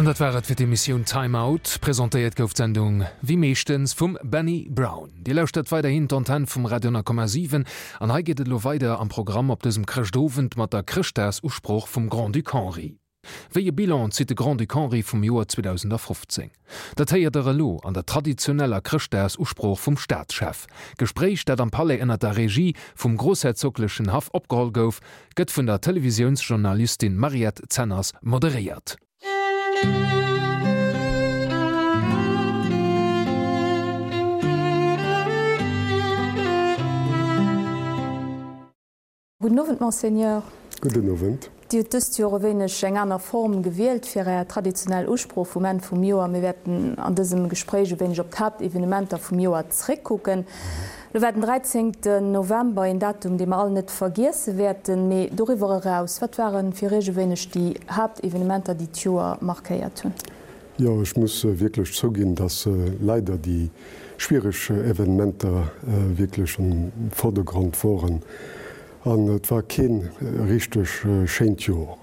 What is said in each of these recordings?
An dat war et fir d'Emissioun Time Out. Presentéiert gouf d'Sendung wéi meeschtens vum Benny Brown. Dir lauschtert weiderhin d'Antenn vum Radio 10,7 an hei geet et elo weider am Programm op dësem Chrëschtowend mat der Chrëschtdagsusprooch vum Grand-Duc Henri. Wéi e Bilan zitt de Grand-Duc Henri vum Joer 2015? Dat héiert der elo an der traditioneller Chrëschtdagsusprooch vum Staatschef. D'Gespréich, dat am Palais ënner der Regie vum groussherzoglechen Haff opgeholl gouf, gëtt vun der Televisiounsjournalistin Mariette Zenners moderéiert. Gudden Owend, Monseigneur. Gudden Owend. Dir hutt dëst Joer e wéineg eng aner Form gewielt fir Är traditionell Usprooch vum Enn vum Joer. Mir wäerten an dësem Gespréich e wéineg op d'Haaptevenementer vum Joer zréckkucken. Lo war den 13 November een Datum, dee mer all net vergiesse wäerten. Mee doriwwer eraus, wat ware fir Iech e wéineg déi Haaptevenementer, déi d'Joer markéiert hunn? Jo, ech muss wierklech zouginn, dass leider déi schwiereg Evenementer wierklech am Vordergrond woren. An et war kee richteg schéint Jor.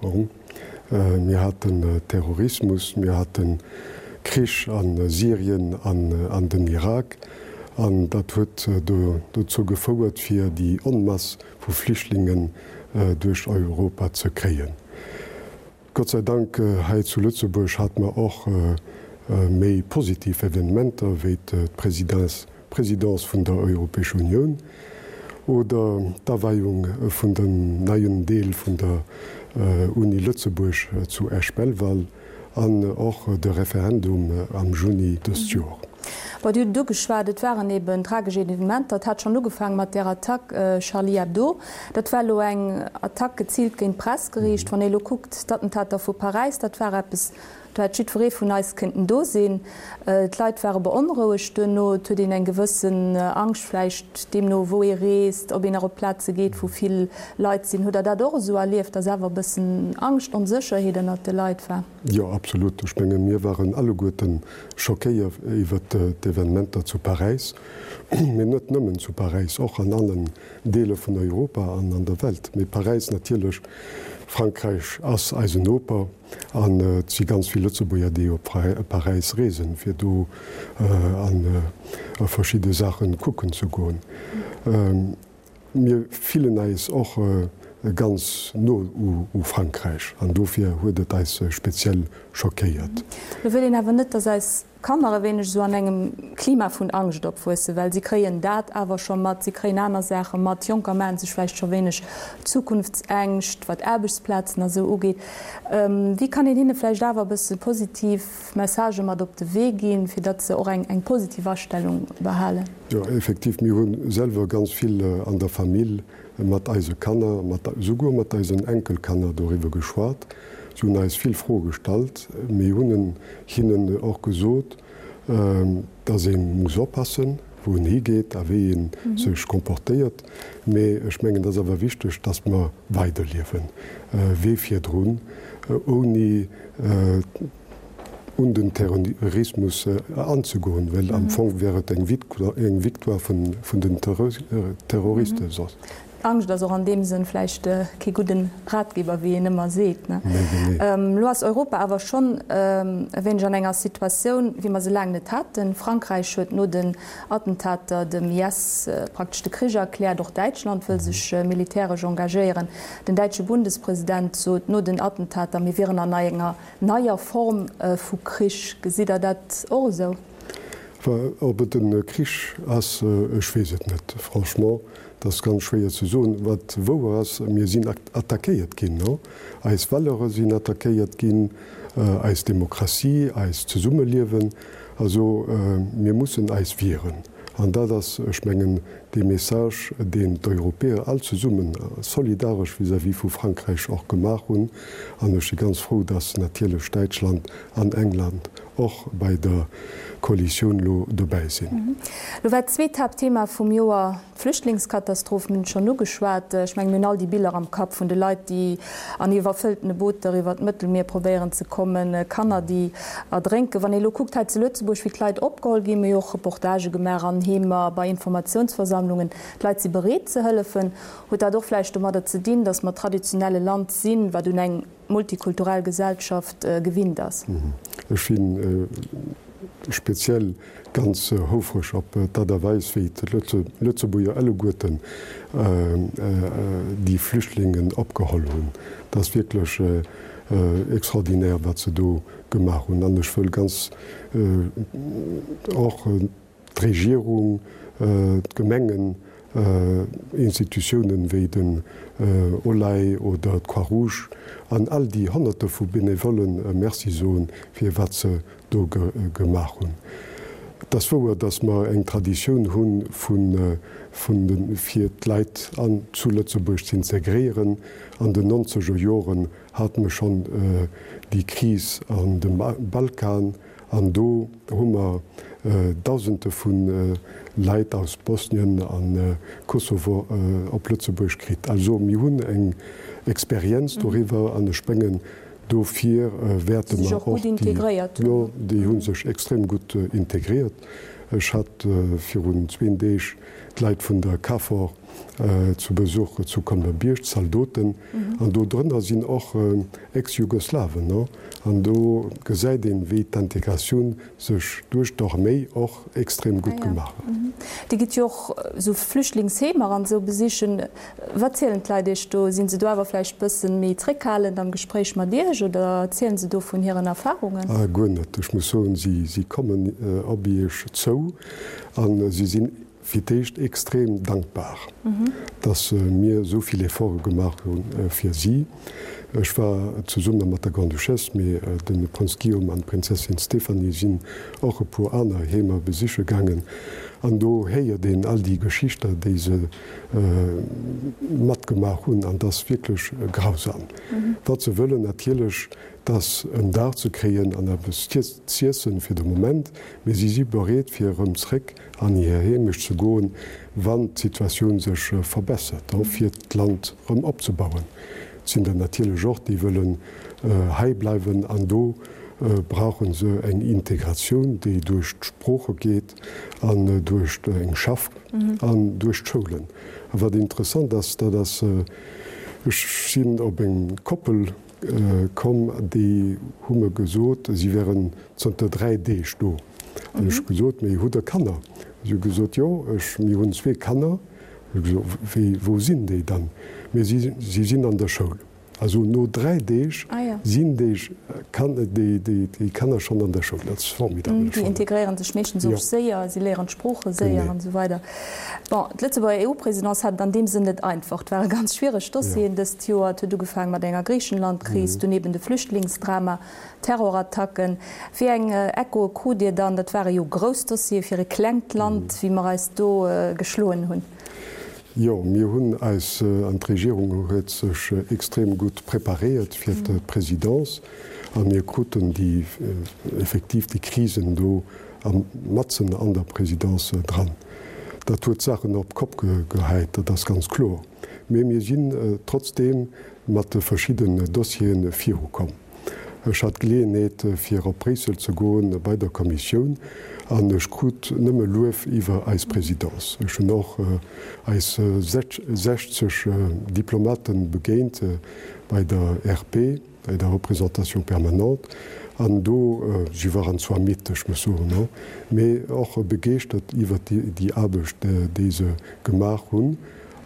Mir haten Terrorismus, mir haten Krich a Syrien an an den Irak. An dat huet dozou gefouert, fir déi Onmass vu Flüchtlingen duerch Europa ze kréien. Gott sei Dank hei zu Lëtzebuerg hate mer och méi positiv Evenementer wéi d'Presidence vun der Europäescher Unioun oder d'Aweiung vun dem neien Deel vun der Uni Lëtzebuerg zu Esch-Belval an och de Referendum am Juni dëst Joer. Bon, Dir hutt et ugeschwat, et waren eben tragesch Evenementer. Et hat schonn ugefaange mat där Attack Charlie Hebdo. Dat war elo eng Attack geziilt géint d'Press geriicht. Wann ee elo kuckt, d'Attentater vu Paräis, dat war eppes, do hätt jiddweree vun eis kënnten do sinn. D'Leit ware beonrouegt duerno. Et huet een eng gewëssen Angscht vläicht, deemno wou ee reest, ob een nach op Plaze geet, wou vill Leit sinn. Hutt Der dat och esou erlieft, datt awer e bëssen Angscht, Onsécherheet ënnert de Leit war? Jo, absolut. Ech menge mir waren alleguerten schockéiert iwwert d'Evenementer zu Paräis, mee net nëmmen zu Paräis, och an allen Deeler vun Europa an an der Welt. Mee Paräis natierlech, Frankräich ass eisen Noper an et si ganz vill Lëtzebuerger, déi op Paräis reesen, fir do a verschidde Saache kucken ze goen. Mir fillen eis och ganz no u Frankräich an dofir huet et eis speziell schockéiert. Lo wëll een awer net, dass eis Kanner e wéineg esou an engem Klima vun Angscht opwuessen, well si kréien dat awer scho mat, si kréien aner Saache mat. Jonker maache sech vläicht scho wéineg Zukunftsängscht, wat Aarbechtsplazen a sou ugeet. Wéi kann een hinne vläicht awer e bësse positiv Messagë mat op de Wee ginn, fir datt se och eng positiv Astellung behalen? Jo, effektiv, mir hu selwer ganz vill an der Famill mat eise Kanner, mat souguer mat eisen Enkelkanner doriwwer geschwat. Si hunn eis vill Froe gestallt. Mir hunn hinnen och gesot, dass ee muss oppassen, wou een higeet a wéi ee sech comportéiert. Mee ech mengen, et ass awer wichteg, dass mer weiderliewen wéi virdrun, ouni un den Terrorismus anzegoen, well am Fong wär et eng Victoire vun den Terroristen soss. Angscht ass och an deem Sënn vläicht kee gudden Ratgeber, wéi een ëmmer seet. Elo ass Europa awer schonn e wéineg an enger Situatioun, wéi mer se laang net haten. Frankräich huet no den Attentater dem IS praktesch de Krich erkläert. Och Däitschland wëll sech militäresch engagéieren. Den däitsche Bundespresident sot no den Attentater, mir wieren an enger neier Form vu Krich. Gesitt Der dat och esou? Ob et e Krich ass, ech weess et net. Franchement, et ass ganz schwéier ze soen. Wat wouer ass, mir sinn attackéiert ginn. Eis Valeure sinn attackéiert ginn, eis Demokratie, eist Zesummeliewen. Also mir mussen eis wieren. An dat ass, ech mengen, dee Message, deen d'Europäer all zesummen solidaresch vis-à-vis vu Frankräich och gemaach hunn. An ech si ganz frou, datt natierlech Däitschland an England och bei der Koalitioun elo dobäi sinn. Elo war d'zweet Haaptthema vum Joer D'Flüchtlingskatastroph, mir hunn et schonn ugeschwat. Ech mengen, mir hunn all déi Biller am Kapp vun de Leit, déi an iwwerfëlltene Booter iwwer d'Mëttelmier probéieren ze kommen, Kanner, déi erdrénken. Wann ee elo kuckt hei zu Lëtzebuerg, wéi d'Leit opgeholl ginn, mir hu jo och Reportagë gemaach an Heemer, bei Informatiounsversammlungen, d'Leit si bereet ze hëllefen. Huet dat och vläicht domadder ze dinn, datt mer traditionell e Land sinn, wat un eng multikulturell Gesellschaft gewinnt ass? Ech sinn speziell ganz houfreg op d'Aart a Weis, wéi d'Lëtzebuerger alleguerten déi Flüchtlingen opgeholl hunn. Dat ass wierklech extraordinaire, wat se do gemaach hunn. An ech wëll ganz och d'Regierung, d'Gemengen, Institutiounen wéi den OLAI oder d'Croix-Rouge an all déi Honnerte vu Benevollen Merci soen, fir wat se do gemaach hunn. Et ass wouer, datt mer eng Traditioun hu vun de fir d'Leit an zu Lëtzebuerg z'integréieren. An den nonzeger Joren hate mer schonn déi Kris an dem Balkan an do hu mer Dausende vu Leit aus Bosnien a Kosovo op Lëtzebuerg kritt. Also mir hunn eng Experienz doriwwer an ech mengen, Dofir wäerte mer och déi, jo, déi hu sech extrem gutt integriert. Ech hat virun zween Deeg d'Leit vun der KFOR zu Besuch zu Colmer-Bierg, d'Zaldoten, an do drënner sinn och Ex-Jugoslawen, an do gesäit een, wéi d'Integratioun sech duerch d'Arméi och extrem gutt gemaach huet. Dir gitt jo och esou Flüchtlingsheemer an esou besichen. Wat zielen d'Leit Iech do? Sinn se do awer vläicht bëssen méi zréckhalend am Gespréich mat Iech oder erzielen se do vun hiren Erfahrungen? Guer net. Ech muss soen, si kommen op Iech zou a si sinn fir d'éischt extrem dankbar, dass mir esou vill Efforte gemaach hu fir si. Ech war zesumme mat der Grande-Duchesse, mee de Prënz Guillaume an d'Prinzessin Stéphanie sinn och e puer aner Heemer besiche gaangen. An do héiert een all déi Geschichter, déi se matgemaach hunn, an dat ass wierklech grausam. Wat se wëllen natierlech, 't ass en Daach ze kréien an eppes z'iessen fir de Moment, mee si si bereet fir erëm zréck an hir Heemecht ze goen, wann d'Situatioun sech verbessert, fir d'Land erëm opzebauen. Et sinn der natierlech och, déi wëllen hei bleiwen an do brauche se eng Integratioun, déi duerch d'Sprooche geet an duerch eng Schaff an duerch d'Schoulen. A wat interessant ass, dat ass, ech sinn op eng Koppel Komm, déi hu mer gesot, si wären zënter 3 Deeg do. An ech hu gesot, Mee hutt Der Kanner? Si hu gesot, Jo, ech, mir hunn zwee Kanner. Ech hu gesot, Wéi, wou sinn déi dann? Mee si, si sinn an der Schoul. Also no 3 Deeg sinn déi Kan, déi, déi, déi Kanner schonn an der Schoul. Dat ass formidabel. Déi integréiere sech meeschtens och séier, si léieren d'Sprooche séier an esou weider. Bon, d'Lëtzebuerger EU-Presidence hat et an deem Sënn net einfach. Et ware ganz schwiereg Dossieren dëst Joer. Et huet ugefaange mat enger Griichenland-Kris, dunn eben de Flüchtlingsdrama, Terrorattacken. Wéi eng Echoe krut Dir dann? Dat ware jo grouss Dossiere fir e klengt Land, wéi mer eis do geschloen hunn. Jo, mir hunn eis, an d'Regierung huet sech extrem gutt preparéiert fir d'Presidence a mir kruten déi effektiv déi Krisen do matzen an der Présidence dran. Dat huet d'Saachen op d'Kopp gehäit, dat ass ganz kloer. Mee mir sinn trotzdeem mat de verschidden Dossiere virukomm. Ech hat d'Geleeënheet, fir op Bréissel ze goen bei der Kommissioun an ech krut nëmme Luef iwwer eis Présidence. Ech hunn och eis 60 Diplomate begéint bei der RP. bei der Représentation permanente, an do, si waren zwar midd, ech muss soen, mee och begeeschtert iwwert déi Aarbecht, déi se gemaach hunn,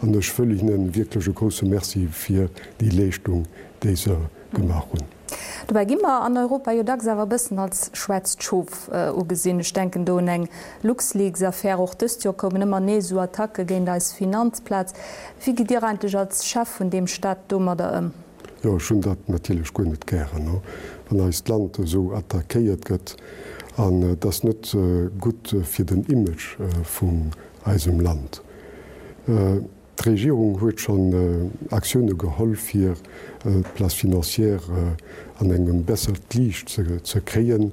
an ech wëll hinne wierklech e grousse Merci fir déi Leeschtung, déi se gemaach hunn. Dobäi gi mer an Europa jo dacks awer e bëssen als schwaarzt Schof ugesinn. Ech denken do un eng Luxleaks-Affär. Och dëst Joer koumen ëmmer nees esou Attacke géint eis Finanzplaz. Wéi gitt Dir eigentlech als Chef vun deem Staat domadder ëm? Jo, ech hunn dat natierlech guer net gären, wann eist Land esou attackéiert gëtt. An et ass net gutt fir den Image vun eisem Land. D'Regierung huet schonn Aktioune geholl, fir d'Place financière an engem bessert Liicht ze kréien.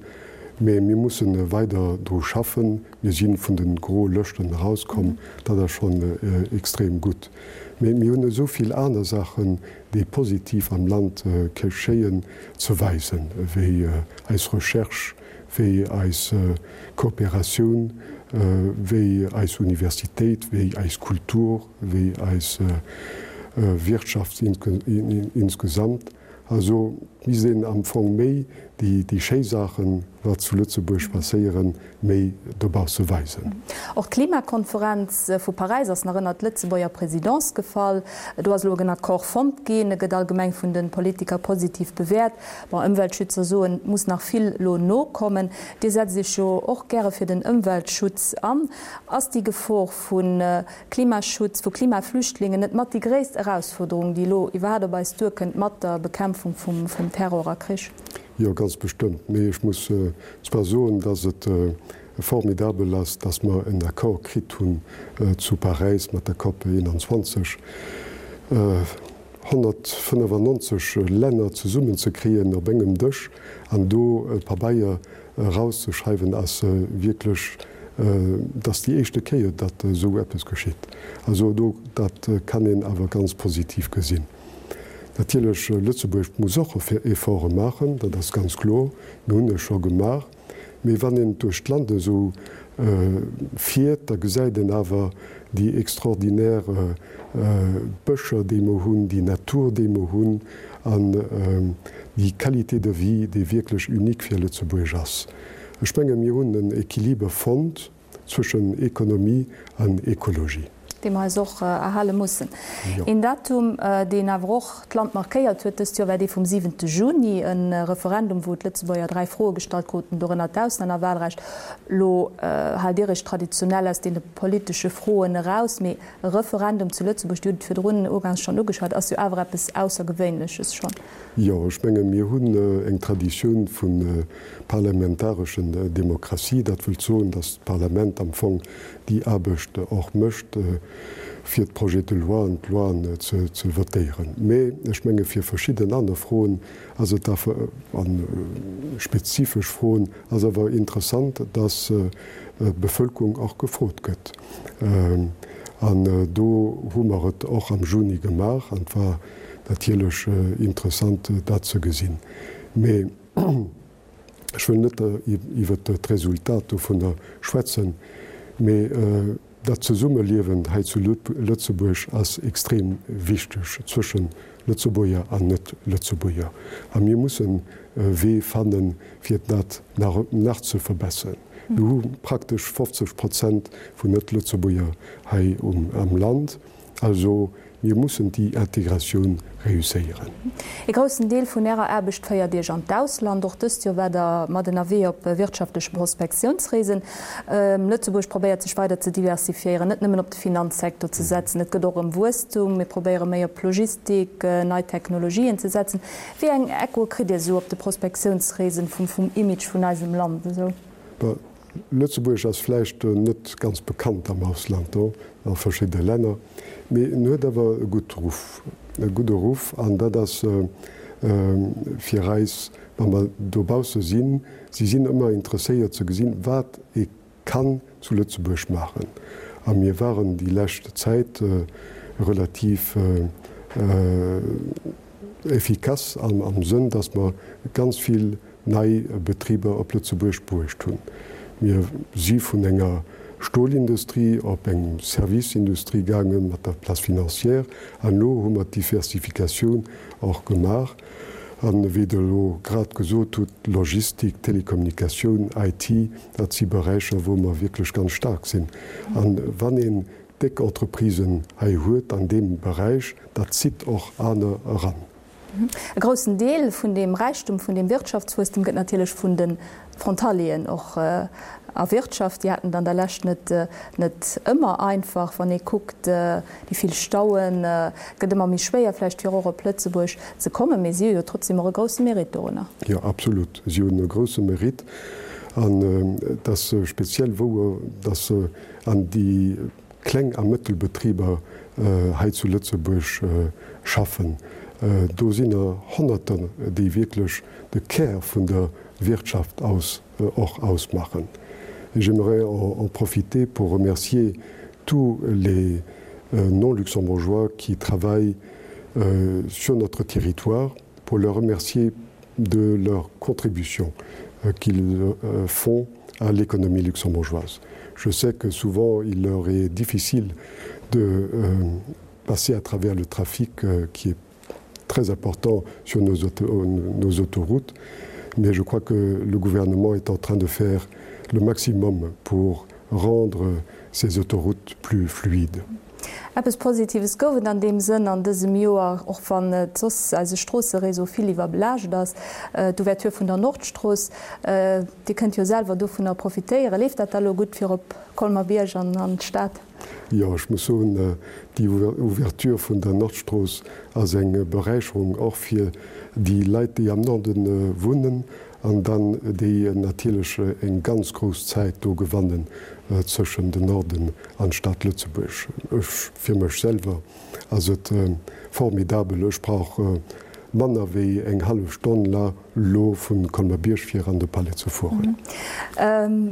Mee mir musse weider dru schaffen. Mir si vun de groe Lëschten erauskomm, dat ass schonn extrem gutt. Mee mir hunn esou vill aner Saachen, déi positiv am Land geschéien, ze weisen, wéi eis Recherche, wéi eis Kooperatioun, wéi eis Universitéit, wéi eis Kultur, wéi eis Wirtschaft insgesamt. Also. Et misst een am Fong méi déi schéi Saachen, wat zu Lëtzebuerg passéieren, méi dobausse weisen. Och d'Klimakonferenz vu Paräis ass nach ënnert d'Lëtzebuerger Présidence gefall. Do ass elo en Accord fonnt ginn. E gëtt allgemeng vun de Politiker positiv bewäert. Bon, Ëmweltschützer soen, et muss nach vill elo nokommen. Dir setzt Iech jo och gäre fir den Ëmweltschutz an. Ass déi Gefor vu Klimaschutz, vu Klimaflüchtlingen net mat déi gréisst Erausfuerderung, déi elo iwwerhaat op eis duerkënnt mat der Bekämpfung vum Terror a Krich? Jo, ganz bestëmmt. Mee ech muss zwar soen, dass et formidabel ass, dass mer en Accord kritt hunn zu Paräis mat der COP 21, 195 Länner zesummenzekriegen op engem Dësch an do e Pabeier erauszeschreiwen, ass wierklech, et ass déi éischte Kéier, datt esou eppes geschitt. Also do, dat kann een awer ganz positiv gesinn. Natierlech, Lëtzebuerg muss och Efforte maachen, dat ass ganz kloer. Mir hunn e scho gemaach. Mee wann een duerch d'Land esou fiert, da gesäit een awer déi extraordinaire Bëscher, déi mer hunn, déi Natur, déi mer hunn an déi Qualité de vie, déi wierklech unique fir Lëtzebuerg ass. Ech menge mir hunn en Equiliber fonnt zwëschen Ekonomie an Ekologie. Dee mer eis och erhale mussen. Een Datum, deen awer och d'Land markéiert huet dëst Joer, war dee vum siwente Juni, e Referendum, wou d'Lëtzebuerger 3 Froe gestallt kruten, dorënner d'Auslännerwahlrecht. Elo haalt Dir Iech traditionell aus deene politesche Froen eraus, mee E Referendum zu Lëtzebuerg, Dir hutt et virdrun ugangs schonn ugeschwat, ass jo awer eppes Aussergewéinleches schonn. Jo, ech menge mir hunn eng Traditioun vu parlamentareschen Demokratie. Dat wëllt soen, datt d'Parlament am Fong déi Aarbecht och mécht, fir d'Projets de loi an d'Loien ze votéieren. Mä ech menge fir verschidden aner Froen ass et awer, a spezifesch Froen, ass awer interessant, datt d'Bevölkerung och gefrot gëtt. An do hu mer et och am Juni gemaach an et war natierlech interessant, dat ze gesinn. Mee ech wëll net iwwert d'Resultat dovunner schwätzen, mee dat Zesummeliewen hei zu Lëtzebuerg ass extrem wichteg zwëschen Lëtzebuerger an Net-Lëtzebuerger. A mir mussen e Wee fannen, fir dat nach ze verbesseren. Mir hu praktesch 50 Prozent vun Net-Lëtzebuerger hei am Land. Also mir mussen déi Integratioun reusséieren. Ee groussen Deel vun Ärer Aarbecht féiert Iech an d'Ausland. Och dëst Joer waart Der mat ënnerwee op wirtschaftleche Prospektiounsreesen. Lëtzebuerg probéiert sech weider ze diversifiéieren, net nëmmen op de Finanzsecteur ze setzen. Et gëtt och ëm Wuesstum. Mir probéiere méi op Logistik, nei Technologien ze setzen. Wéi eng Echoe kritt Dir esou op de Prospektiounsreesen vum Image vun eisem Land esou? Bon, Lëtzebuerg ass vläicht net ganz bekannt am Ausland, do a verschidde Länner, mee en huet awer e gutt Ruff, e gudde Ruff an dat ass fir eis, wa mer dobausse sinn, si sinn ëmmer interesséiert ze gesinn, wat ee kann zu Lëtzebuerg maachen. A mir waren déi lescht Zäit relativ efficace am Sënn, dass mer ganz vill nei Betriber op Lëtzebuerg bruecht hunn. Mir si vun enger Stolindustrie op eng Serviceindustrie gaange mat der Place financière an elo hu mer d'Diversifikatioun och gemaach. An wéi Der elo grad gesot hutt, Logistik, Telekommunikatioun, IT, dat si Beräicher, wou mer wierklech ganz staark sinn. A wann een déck Entreprisen hei huet an deem Beräich, dat zitt och aner eran. E groussen Deel vun deem Räichtum, vun deem Wirtschaftswuesstem gëtt natierlech vun de Frontalieren och erwirtschaft. Déi haten et an der Lescht net net ëmmer einfach. Wann ee kuckt, déi vill Stauen, et gëtt ëmmer méi schwéier vläicht fir och op Lëtzebuerg ze kommen, mee si hu jo trotzdem och e grousse Mérite dorunner. Jo, absolut, si hunn e grousse Mérite an et ass speziell wouer, dass an déi Kleng a Mëttelbetriber hei zu Lëtzebuerg schaffen. Do sinn der Honnerter, déi wierklech de Kär vun der Wirtschaft aus och ausmachen. Et j'aimerais en profiter pour remercier tous les non-luxembourgeois qui travaillent sur notre territoire, pour leur remercier de leur contribution qu'ils font à l'économie luxembourgeoise. Je sais que souvent il leur est difficile de euh, passer à travers le trafic euh, qui est. très importants sur nos, nos autoroutes. Mais je crois que le gouvernement est en train de faire le maximum pour rendre ces autoroutes plus fluides. Eppes Positives gouf et an deem Sënn an dësem Joer, och wann et soss eise Stroosseréseau vill iwwerbelaascht ass, d'Ouverture vun der Nordstrooss. Dir kënnt jo selwer dovunner profitéieren. Leeft dat da lo gutt fir op Colmer-Bierg an an d'Stad? Jo, ech muss soen, déi Ouverture vun der Nordstrooss ass eng Beräicherung och fir déi Leit, déi am Norde wunnen an dann déi natierlech eng ganz grouss Zäit do gewannen zwëschen den Norden an d'Stad Lëtzebuerg. Ech, fir mech selwer ass et formidabel. Ech brauch manner wéi eng hallef Stonn la lo vu Colmer-Bierg fir an de Palais ze fueren.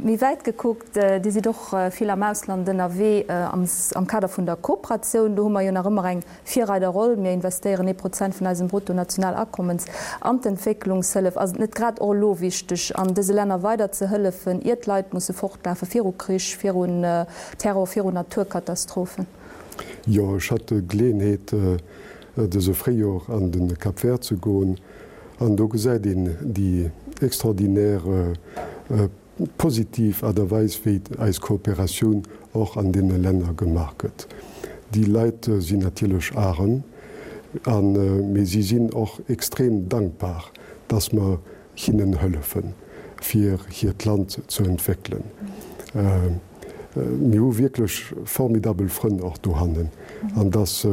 Méi wäit gekuckt, Dir sidd och vill am Ausland ënnerwee am Kader vun der Kooperatioun. Do hu mer jo nach ëmmer eng Virreiderroll. Mir investéieren ee Prozent vun eisem Bruttonationalakommens an d'Entwécklungshëllef. Ass et net grad och elo wichteg, an dëse Länner weider ze hëllefen, ier d'Leit musse fortlafe viru Krich, virun Terror, virun Naturkatastrophen? Jo, ech hat d'Geleeënheet, dëse Fréijor an de Cap Vert ze goen, an do gesäit een déi extraordinaire positiv Aart a Weis, wéi eis Kooperatioun och an deene Länner gemaach gëtt. Déi Leit sinn natierlech arem, a mee si sinn och extrem dankbar, dass mer hinnen hëllefen, fir hiert Land ze entwéckelen. Mir hu wierklech formidabel Frënn och dohannen, an dass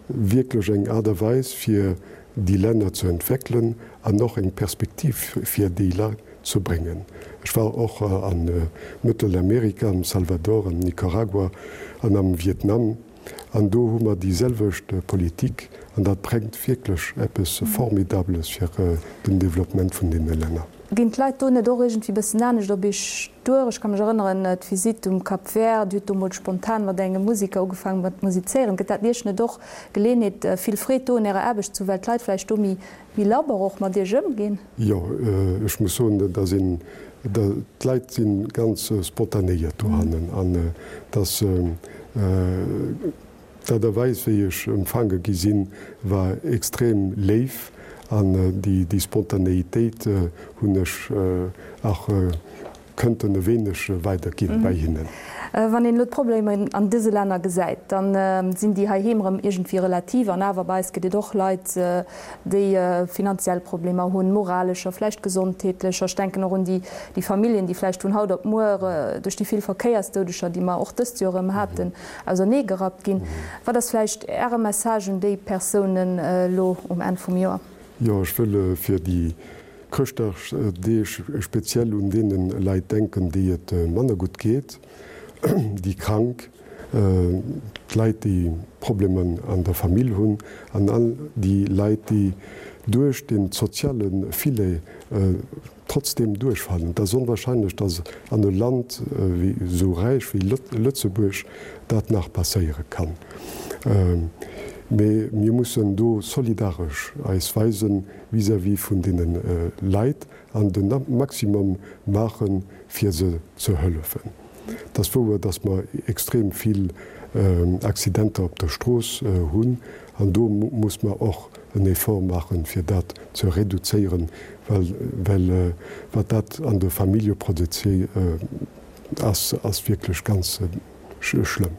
wierklech eng Aart a Weis, fir déi Länner ze entwéckelen an och eng Perspektiv fir déi Leit ze bréngen. Ech war och a Mëttelamerika, am Salvador, am Nicaragua an am Vietnam, an do hu mer déi selwecht Politik an dat bréngt wierklech eppes Formidables fir den Développement vun deene Länner. Ginn d'Leit do net och iergendwéi bëssen anescht op Iech duer? Ech ka mech erënneren, d'Visitt um Cap Vert, Dir hutt do mol spontan mat engem Musiker ugefaangen mat musizéieren. Gëtt dat Iech net och Geleeënheet, vill Freed do un Ärer Aarbecht ze hu, well d'Leit vläicht do méi labber och mat Iech ëmginn? Jo, ech muss soen, dass een, d'Leit si ganz spontanéiert dohannen an dass D'Aart a Weis, wéi ech empfaange gi sinn, war extrem léif an déi Spontanéitéit hunn ech och kënnten e wéineg weiderginn bei hinnen. Wann een elo d'Problemer an dëse Länner gesäit, da sinn déi heiheem erëm iergendwéi relativ. An awer, bei eis gëtt et och Leit, déi finanziell Problemer hunn, moralescher, vläicht gesondheetlecher. Ech denken och un déi Familljen, déi vläicht vun haut op muer duerch déi vill Verkéiersdoudeger, déi mer och dëst Joer erëm haten, auserneegerappt ginn. Wat ass vläicht Äre Message un déi Persounen elo um Enn vum Joer? Jo, ech wëll fir déi Chrëschtdagsdeeg speziell un deene Leit denken, déi et manner gutt geet, déi Krank, d'Leit, déi Problemer an der Famill hunn an all déi Leit, déi duerch de soziale Filet trotzdeem duerchfalen. Et ass onwahrscheinlech, datt an e Land esou räich wéi Lëtzebuerg dat nach passéiere kann. Mee mir mussen do solidaresch eis weise vis-à-vis vun deene Leit an de Maximum maachen, fir se ze hëllefen. Et ass wouer, dass mer extrem vill Accidenter op der Strooss hunn an do muss mer och en Effort maachen, fir dat ze reduzéieren, well wat dat an de Famillje produziert, ass wierklech ganz schlëmm.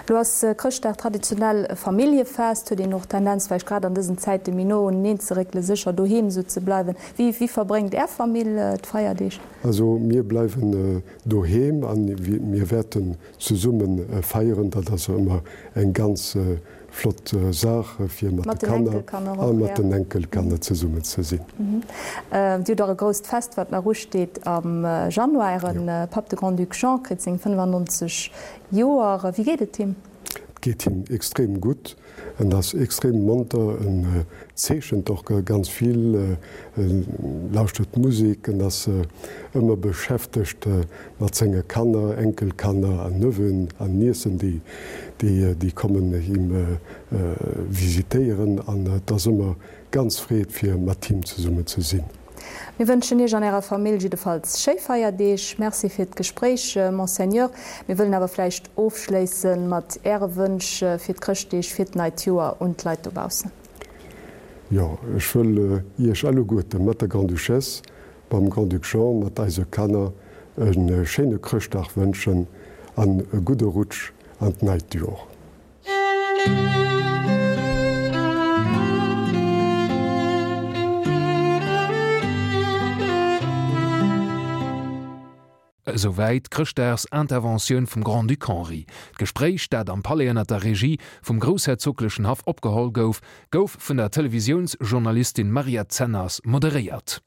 Elo ass Chrëschtdag traditionell e Familljefest. Huet een och d'Tendenz vläicht grad an dësen Zäite méi no uneneen ze réckelen, sécher doheem esou ze bleiwen? Wéi verbréngt Är Famill d'Feierdeeg? Also mir bleiwen doheem a mir wäerten zesumme feieren. Dat ass ëmmer eng ganz flott Saach fir mat de Kanner a mat den Enkelkanner zesummen ze sinn. Dir hutt och e grousst Fest wat nach usteet am Januar. Äre Papp de Grand-Duc Jean kritt seng 95 Joer. Wéi geet et him? Et geet him extrem gutt. En ass extrem monter, en zeechent och ganz vill, en lauschtert Musek, en ass ëmmer beschäftegt mat senge Kanner, Enkelkanner an Neveuxen an Niecen, déi kommen him visitéieren an et ass ëmmer ganz Freed fir mat him zesummen ze sinn. Mir wënschen Iech an Ärer Famill jiddefalls schéi Feierdeeg. Merci fir d'Gespréich, Monseigneur. Mir wëllen awer vläicht ofschléisse mat Äre Wënsch fir d'Chrëschtdeeg, fir d'neit Joer un d'Leit dobaussen. Jo, ech wëll Iech alleguerte mat der Grande-Duchesse, mam Grand-Duc Jean, mat eise Kanner e schéine Chrëschtdag wënschen an e gudde Rutsch an d'neit Jor. Esouwäit d'Chrëschtdagsinterventioun vum Grand-Duc Henri. D'Gespréich, dat am Palais ënner der Regie vum groussherzoglechen Haff opgeholl gouf, gouf vun der Televisiounsjournalistin Mariette Zenners moderéiert.